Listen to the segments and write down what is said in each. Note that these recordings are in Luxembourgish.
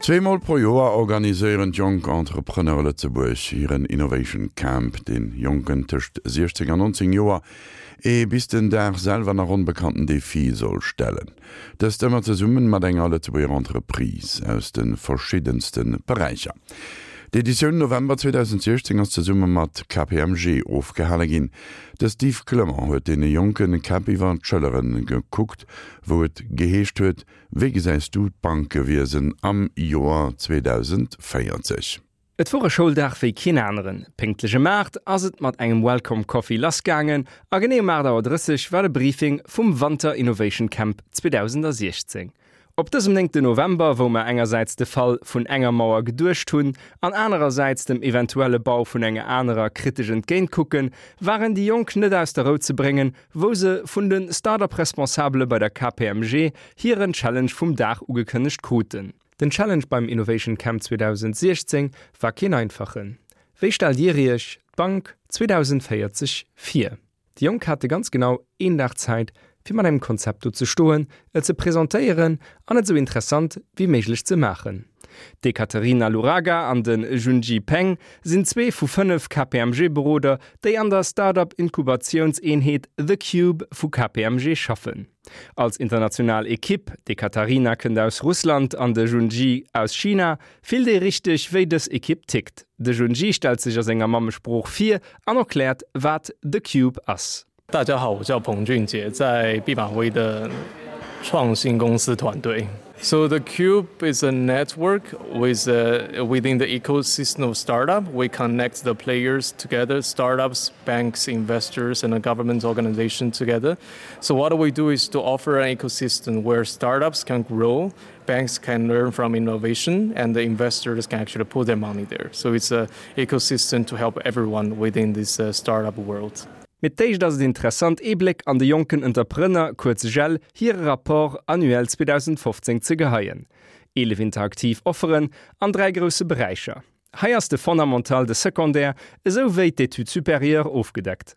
Zweemol pro Joer organiséieren d'Jonk Entrepreneure Lëtzebuerg hiren Innovation Camp, deen Jonken tëscht 16 an 19 Joer ee bis den Dag selwer nach onbekannten Defi soll stellen. Dëst ëmmer zesummen mat enger Lëtzebuerger Entreprise aus de verschiddenste Beräicher. D'Editioun November 2016 ass zesumme mat KPMG ofgehale ginn. De Steve Clement huet deene jonke Käpp iwwer d'Schëllere gekuckt, wou et geheescht huet, Wéi gesäis du d'Bankewiesen am Joer 2040? Et wor e Schouldag wéi keen aneren. Pénktlech ëm 8 ass et mat engem Welcome Coffee lass gaangen a genee um 8 Auer 30 war de Briefing vum Wanter Innovation Camp 2016. Op dësem néngten November, wou mer engersäits de Fall vun enger Mauer geduecht hunn an anerersäits dem eventuelle Bau vun enger anerer kritesch entgéint kucken, waren déi Jonk net aus der Rou ze bréngen, wou se vun de Start-up-Responsabele bei der KPMG hiren Challenge vum Dag ugekënnegt kruten. Den Challenge beim Innovation Camp 2016 war keen einfachen. Wéi stellt Dir Iech d'Bank 2040 vir? Déi Jonk hate ganz genau een Dag Zäit, fir mat engem Konzept do ze stoen, et ze presentéieren an et esou interessant wéi méiglech ze maachen. D'Ekaterina Luraga an de Junji Peng sinn zwee vu 5 KPMG-Beroder, déi an der Start-up-Inkubatiounseenheet The Cube vu KPMG schaffen. Als international Ekipp, d'Ekaterina kënnt aus Russland an de Junji aus China, fillt ee richteg, wéi dës Ekipp tickt. De Junji stellt sech a senger Mammesprooch vir an erkläert, wat The Cube ass. 大家好， 我叫彭俊杰， 在毕马威的创新公司团队。So the Cube is a network with uh, within the ecosystem of startup. We connect the players together, startups, banks, investors, and a government organization together. So what we do is to offer an ecosystem where startups can grow, banks can learn from innovation, and the investors can actually put their money there. So it's an ecosystem to help everyone within this uh, startup world. Mee d'éischt ass et interessant ee Bléck an de jonken Entreprenner, kuerz JEL, hire Rapport annuel 2015 ze geheien. 11 interaktiv Offeren an 3 grousse Beräicher. Hei ass de Fondamental, de Secondaire esou wéi d'Études supérieures ofgedeckt.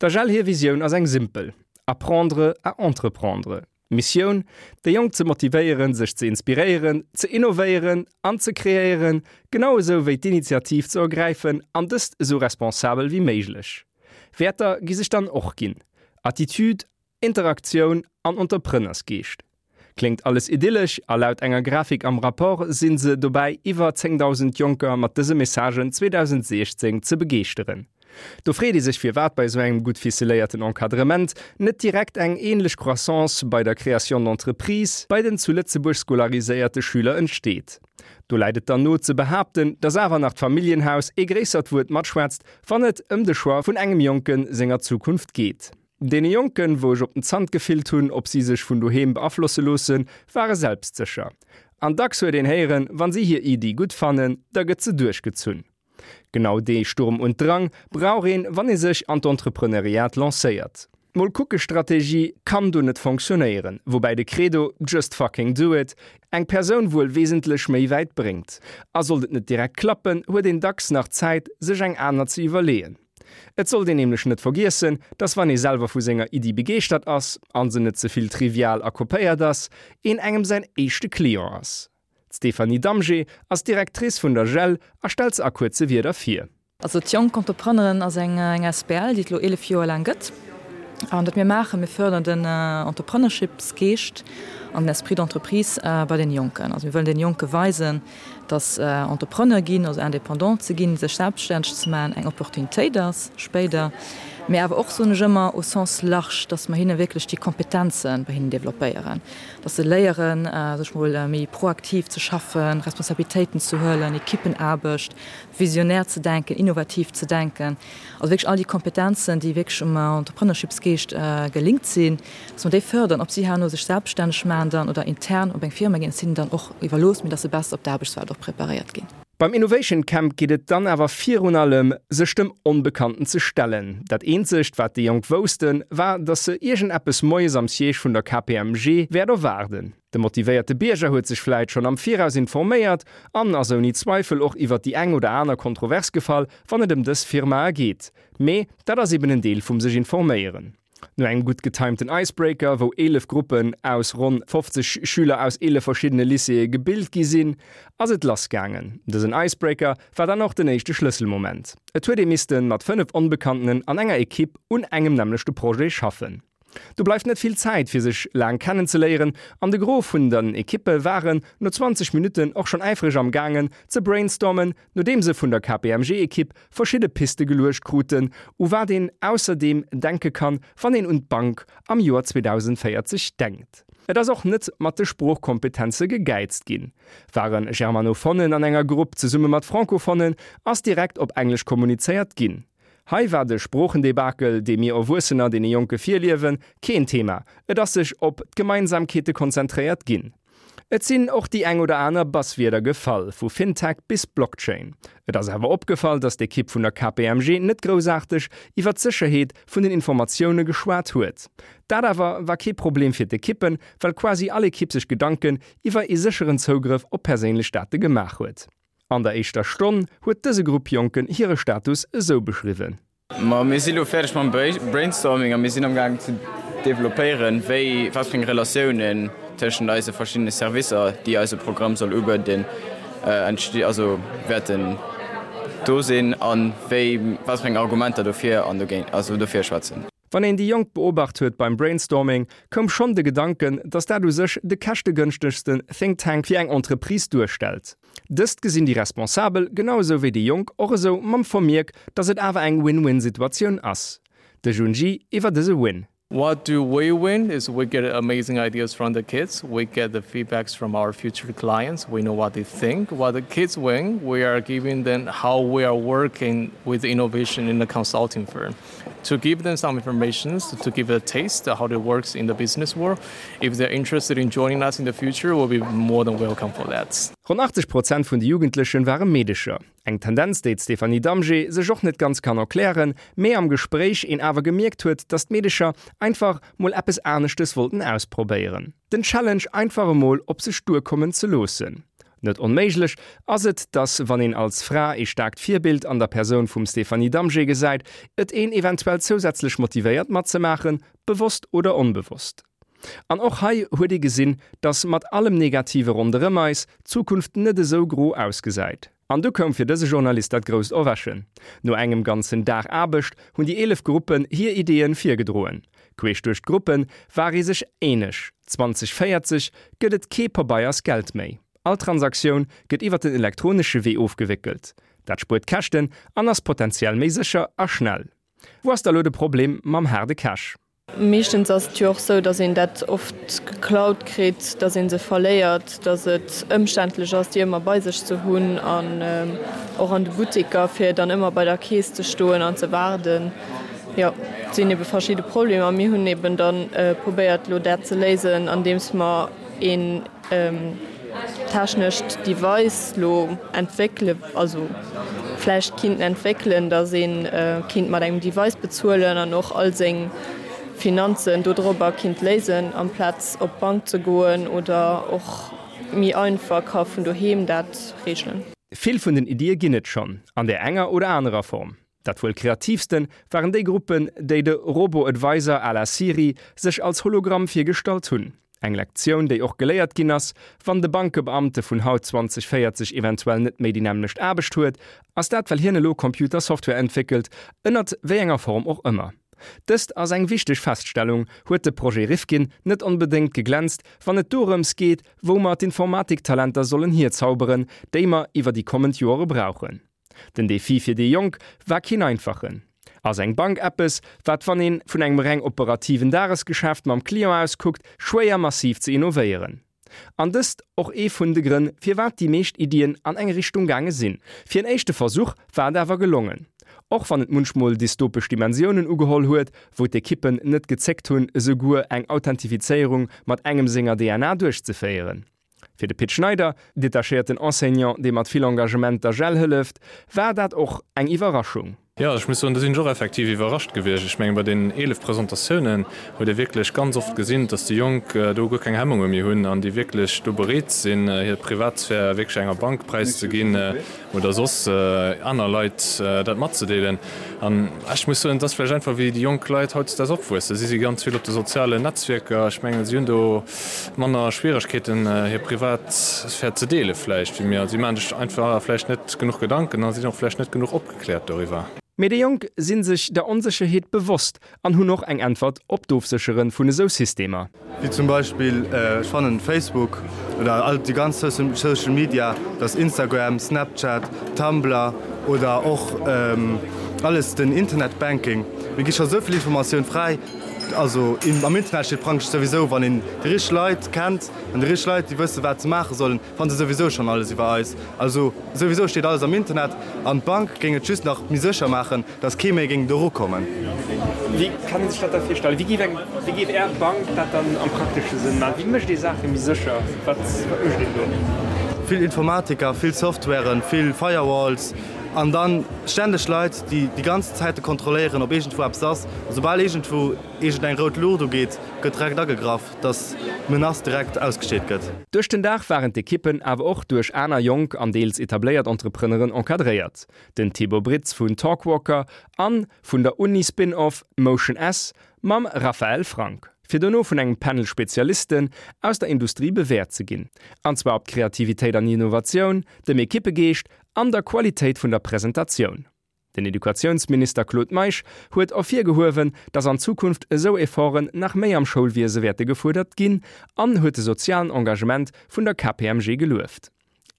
Der JEL hir Visioun ass eng simpel, Apprendre à entreprendre. D'Missioun, déi Jonk ze motivéieren, sech ze inspiréieren, ze innovéieren an ze kreéieren, genau esou wéi d'Initiativ ze ergräifen an dëst esou responsabel wéi méiglech. Wäerter gi sech dann och ginn, Attitude, Interaktioun an Entrepreneursgeescht. Kléngt alles idyllesch a laut enger Grafik am Rapport si se dobäi iwwer 10.000 Jonker mat dëse Messagen 2016 ze begeeschteren. Do freet ee sech firwat bei esou engem gutt ficeléierten Encadrement net direkt eng ähnlech Croissance bei der Création d'entreprise bei den zu Lëtzebuerg scolariséierte Schüler entsteet. Do läit et dann no ze behaapten, dass awer nach d'Familljenhaus ee gréissert Wuert matschwätzt, wann et ëm de Choix vun engem Jonke senger Zukunft geet. Deene Jonken, wou ech op den Zant gefillt hunn, ob si sech vun doheem beaflosse loossen, ware selbstsécher. An dacks huet een héieren, wa si hir Iddi gutt fannen, da gëtt se duerchgezunn. Genau dee Sturm und Drang brauch een, wann ee sech an d'Entrepreneuriat lancéiert. D'Mol-kucke-Strategie kann do net fonctionnéieren, woubäi de Credo Just fucking do it eng Persoun wuel wesentlech méi wäit bréngt. A sollt et net direkt klappen, huet een dacks nach Zäit, sech eng aner ze iwwerleeën. Et sollt een nämlech net vergiessen, dass wann ee selwer vu senger Iddi begeeschtert ass, an se net ze vill trivial a kopéiert ass, een engem säin éischte Client ass. D'Stéphanie Damgé ass Directrice vun der JEL a stellt se a kuerze Wierder vir. Also d'Jonk Entrepreneuren ass eng asbl, déi et elo 11 Joer laang gëtt. An wat mir maachen, mir fërderen den Entrepreneurshipsgeescht an den Esprit d'entreprise bei den Jonken. Also mir wëllen den Jonke weisen, dass Entrepreneur ginn, also indépendant ze ginn, sech selbststänneg ze maachen, eng Opportunitéit ass spéider. Mee awer och, soen ech ëmmer, au sens large, dass mer hinne wierklech déi Kompetenze bei hinnen developpéieren. Dass se léieren, sech mol méi proaktiv ze schaffen, Responsabilitéiten ze huelen, Ekippenaarbecht, visionär ze denken, innovativ ze denken. Also wierklech all déi Kompetenzen, déi wierklech um Entrepreneurshipsgeescht gelinkt sinn, dass mer déi fërderen. Ob si herno sech selbststänneg maachen dann oder intern op eng Firma ginn, ass hinnen dann och iwwerlooss, mee dass se besser op d'Aarbechtswelt och preparéiert ginn. Beim Innovation Camp geet et dann awer virun allem, sech dem Onbekannten ze stellen. Dat eenzegt, wat déi Jonk woussten, war, datt se iergendeppes moies am Siège vun der KPMG wäert erwaarden. De motivéierte Bierger huet sech vläit schonn am Viraus informéiert an ass ouni Zweifel och iwwert déi eng oder aner Kontrovers gefall, wann et ëm dës Firmae geet. Mee dat ass eben en Deel vum sech informéieren. No engem gutt getimten Icebreaker, wou 11 Gruppen aus ronn 50 Schüler aus 11 verschiddene Lycéeë gebilt gi sinn, ass et lass gaangen. Dësen Icebreaker war dann och den éischte Schlësselmoment. Et huet ee misste mat 5 Onbekanntenen an enger Ekipp un engem nämmlechte Projet schaffen. Do bleift net vill Zäit fir sech laang kennenzeléieren an de Gros vun den Ekippe waren no 20 Minutten och schonn äifreg am gaangen ze brainstormen, nodeem se vun der KPMG-Ekipp verschidde Piste geluecht kruten, u wat een ausserdeem denke kann, wann een un d'Bank am Joer 2040 denkt. Et ass och net mat de Sproochkompetenze gegäizt ginn. Ware Germanophonen an enger Grupp zesumme mat Francophonen, ass direkt op Englesch kommunizéiert ginn. Hei war de Sproochendebakel, dee mir Erwuessener deene Jonke virliewen, keen Thema, et ass sech op d'Gemeinsamkeete konzentréiert ginn. Et sinn och déi eng oder aner Buzzwierder gefall, vu Fintech bis Blockchain. Et ass awer opgefall, datt d'Ekipp vun der KPMG net groussaarteg iwwer d'Sécherheet vun den Informatioune geschwat huet. Dat awer war kee Problem fir d'Ekippen, well quasi all Ekipp sech Gedanken iwwer ee sécheren Zougrëff op perséinlech Date gemaach huet. An der éischter Stonn huet dëse Grupp Jonken hire Status esou beschriwwen. Ma mir si lo fäerdeg mam Brainstorming a mir sinn am gaang ze developpéieren, wéi, wat fir eng Relatiounen tëschent eise verschiddene Servicer, déi eise Programm soll ubieden, entsti, also wäerten do sinn a wéi, wat fir eng Argumenter dofir an dogéint, also dofir schwätzen. Wann een déi Jonk beobacht huet beim Brainstorming, koum schonn de Gedanken, datt dat u sech de käschtegënschtegsten Think Tank fir eng Entreprise duerstellt. Dëst gesinn déi Responsabel, genau esou wéi déi Jonk, och esou, mam Vermierk, datt et awer eng Win-Win-Situatioun ass. De Junji iwwer dëse Win. What do we win is we get amazing ideas from the kids, we get the feedbacks from our future clients, we know what they think. What the kids win, we are giving them how we are working with innovation in the consulting firm. To give them some information, to give a taste of how it works in the business world. If they're interested in joining us in the future, we'll be more than welcome for that. Ronn 80 Prozent vun de Jugendlechen ware Meedecher. Eng Tendenz, déi d'Stéphanie Damgé sech och net ganz kann erklären, mee am Gespréich een awer gemierkt huet, dass d'Meedecher einfach mol eppes aneschtes wollten ausprobéieren. Den Challenge einfach emol op sech duerkommen ze loossen. Net onméiglech ass et, dass wann een als Fra ee staarkt Virbild an der Persoun vum Stéphanie Damgé gesäit, et een eventuell zousätzlech motivéiert matzemaachen, bewosst oder onbewosst. An och hei huet ee gesinn, dass mat allem Negative ronderëm eis, d'Zukunft net esou gro ausgesäit. An du koum fir dëse Journalist dat grousst Erwächen. No engem ganzen Dag Aarbecht hunn déi 11 Gruppen hir Ideeën virgedroen. Queesch duerch d'Gruppe war ee sech eeneg, 2040 gëtt et kee Pabeiers-Geld méi. All Transaktioun gëtt iwwer den elektronesche Wee ofgewéckelt. Dat spuert Käschten an ass potenziell méi sécher a schnell. Wou ass da lo de Problem mam haarde Cash? Meeschtens ass et jo och sou, datt een dat oft geklaut kritt, datt ee se verléiert, datt et ëmständlech ass, déi ëmmer bei sech ze hunn an och an de Butteker, fir dann ëmmer bei der Keess ze stoen an ze waarden. Jo, et sinn ebe verschidde Problemer. Mir hunn eben da probéiert, elo dat ze léisen, andeems mer een technescht Device lo entwéckele, also vläicht kinnten entwéckelen, datt ee kinnt mat engem Device bezuelen an och all seng Finanzen dodrobber kinnt léisen, amplaz op d'Bank ze goen oder och méi einfach ka vun doheem dat reegelen. Vill vun den Iddie ginn et schonn, an där enger oder anerer Form. Dat wuel kreatiivsten waren déi Gruppen, déi de Robo-Advisor à la Siri sech als Hologramm virgestallt hunn. Eng Lektioun, déi och geléiert ginn ass, wann de Bankebeamte vun haut 2040 eventuell net méi déi nämmlecht Aarbecht huet, ass dat well hien elo Computer-Software entwéckelt, ënnert wéi enger Form och ëmmer. Dëst ass eng wichteg Feststellung, huet de Projet Rifkin net onbedéngt geglänzt, wann et dorëms geet, wou mer d'Informatiktalenter sollen hierzauberen, déi mer iwwer déi kommend Joere brauchen. Den Defi fir déi Jonk war keen einfachen. Ass eng Bank eppes, wat wann een vun engem reng operativen Dagesgeschäft mam Client aus kuckt, schwéier massiv ze innovéieren. An dëst och ee vun de Grënn, firwat déi meescht Iddien an eng Richtung gaange sinn. Fir en éischte Versuch war et awer gelongen. Och wann et munchmol dystopesch Dimensiounen ugeholl huet, wou d'Ekippen net gezéckt hunn, esouguer eng Authentifizéierung mat engem senger DNA duerchzeféieren. Fir de Pit Schneider, detachéierten Enseignant, dee mat vill Engagement der JEL hëlleft, war dat och eng Iwwerraschung. Jo, ech muss soen, do sinn ech och effektiv iwwerrascht gewiescht. Ech mengen, bei deenen 11 Presentatiounen huet ee wierklech ganz oft gesinn, dass déi Jonk do guer keng Hemmunge méi hunn an déi wierklech do bereet sinn, hir Privatsphär wierklech enger Bank präiszeginn oder soss aner Leit dat matzedeelen. An ech muss soen, et ass vläicht einfach, wéi déi jonk Leit hautdesdaags opwuessen. Si si ganz vill op de sozialen Netzwierker. Ech mengen, si hunn do manner Schwieregkeeten, hir Privatsphär ze deele vläicht wéi mir. Si maache sech einfach vläicht net genuch Gedanken a sinn och vläicht net genuch opgekläert. Kläert doriwwer. Mee déi Jonk si sech der Onsécherheet bewosst an hunn och eng Äntwert op d'Ofséchere vun esou Systemer. Wéi zum Beispill, ech fannen Facebook oder all déi ganz Social Media, dat ass Instagram, Snapchat, Tumblr oder och alles den Internet Banking, mir gi scho sou vill Informatioun fräi. Also am Internet steet praktesch souwisou, wann een déi richteg Leit kennt an déi richteg Leit déi wësse wat se maache sollen, Fannt se souwisou schon alles iwwer eis. Also souwisou steet alles am Internet an d'Bank géing et just nach méi sécher maachen, dass kee méi géing do erukommen. Wéi kann een sech dat da virstellen? Wéi géif eng, wéi géif Är Bank dat dann am praktesche Sënn maachen? Wéi mécht ee Saache méi sécher? Wat, wat mécht een do? Vill Informatiker, vill Softwaren, vill Firewalls an dann ständeg Leit, déi déi ganz Zäite kontrolléieren, ob iergendwou eppes ass. A soubal iergendwou iergendeng rout Luucht ugeet, gëtt direkt agegraff. dass d'Menace direkt ausgesteet gëtt. Duerch den Dag waren d'Ekippen awer och duerch aner jonk an deels etabléiert Entrepreneuren encadréiert, den Thibaut Britz vun Talkwalker an vun der Uni Spin-Off Motion S mam Raphaël Frank, fir dono vun engem Panel Spezialisten aus der Industrie bewäert ze ginn, an zwar op d'Kreativitéit an Innovatioun, dem Ekippegeescht an der Qualitéit vun der Presentatioun. Den Educatiounsminister Claude Meisch huet ervirgehuewen, datt an Zukunft esou Efforten nach méi am Schoulwiese wäerte gefuerdert ginn an huet de sozialen Engagement vun der KPMG gelueft.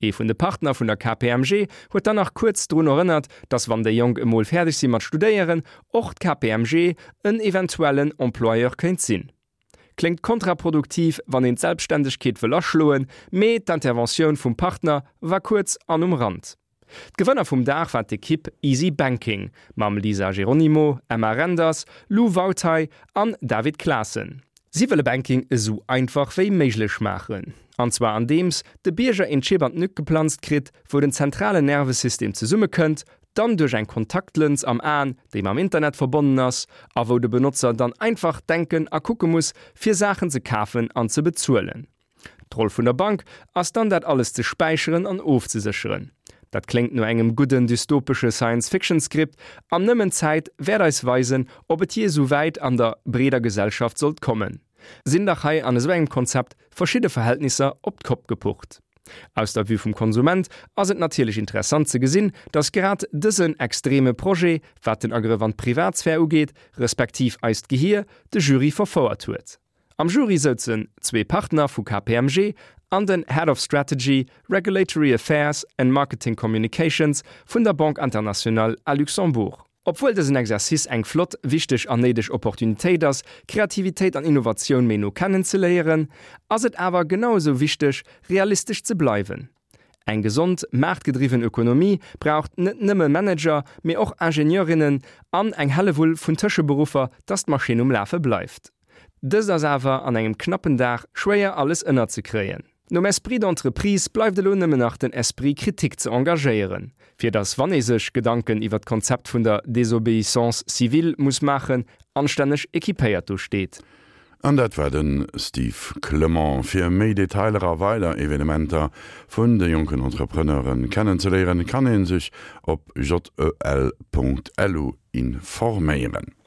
Ee vun de Partner vun der KPMG huet dann nach kuerz drun erënnert, datt wann déi Jonk emol fäerdeg si mat studéieren, och d'KPMG en eventuellen Employeur kéint sinn. Kléngt kontraproduktiv, wann een d'Selbstständegkeet wëll aschloen, mee d'Interventioun vum Partner war kuerz an um Rand. D'Gewënner vum Dag war d'Ekipp Easy Banking mam Lisa Geronimo, Emma Renders, Lou Wautey an David Claassen. Si wëlle Banking esou einfach wéi méiglech maachen, an zwar andeems de Bierger een Chip an d'Nück geplanzt kritt, wou den zentralen Nervesystem zesummekënnt, dann duerch eng Kontaktlëns am Aen, déi mam Internet verbonnen ass, a wou de Benotzer dann einfach denken a kucke muss, fir Saachen ze kafen an ze bezuelen. D'Roll vun der Bank ass dann dat alles ze späicheren an ofzesécheren. Dat kléngt no engem gudden dystopesche Science-Fiction-Skript an nëmmen d'Zäit wäert eis weisen, ob et jee esou wäit an der breeder Gesellschaft sollt kommen. Sinn dach hei an esou engem Konzept verschidde Verhältnisser op d'Kopp gepucht. Aus der Vue vum Konsument ass et natierlech interessant ze gesinn, datt grad dësen extreme Projet, wat den Agrëff an d'Privatsphär ugeet, respektiv eist Gehier, de Jury verfouert huet. Am Jury souzen zwee Partner vu KPMG an den Head of Strategy, Regulatory Affairs and Marketing Communications vun der Banque Internationale à Luxembourg. Obwuel dësen Exercice eng flott, wichteg an néideg Opportunitéit ass, Kreativitéit an Innovatioun méi no kennen ze léieren, ass et awer genau esou wichteg, realistesch ze bleiwen. Eng gesond, maartgedriwwen Ökonomie braucht net nëmme Manager, mee och Ingenieurinnen an eng Hellewull vun Tëscheberuffer, dass d'Maschinn um Lafe bleift. Dëst ass awer an engem knappen Dag schwéier alles ënnerzekréien. Nom Esprit d'entreprise bleift elo nëmmen nach den Esprit critique ze engagéieren, fir dass wann ee sech Gedanken iwwer d'Konzept vun der Désobéissance civile muss maachen, anstänneg équipéiert do steet. An dat war de Steve Clement. Fir méi Detailer a weider Evenementer vun de jonken Entrepreneuren kennenzeléieren, kann ee sech op jel.lu informéieren.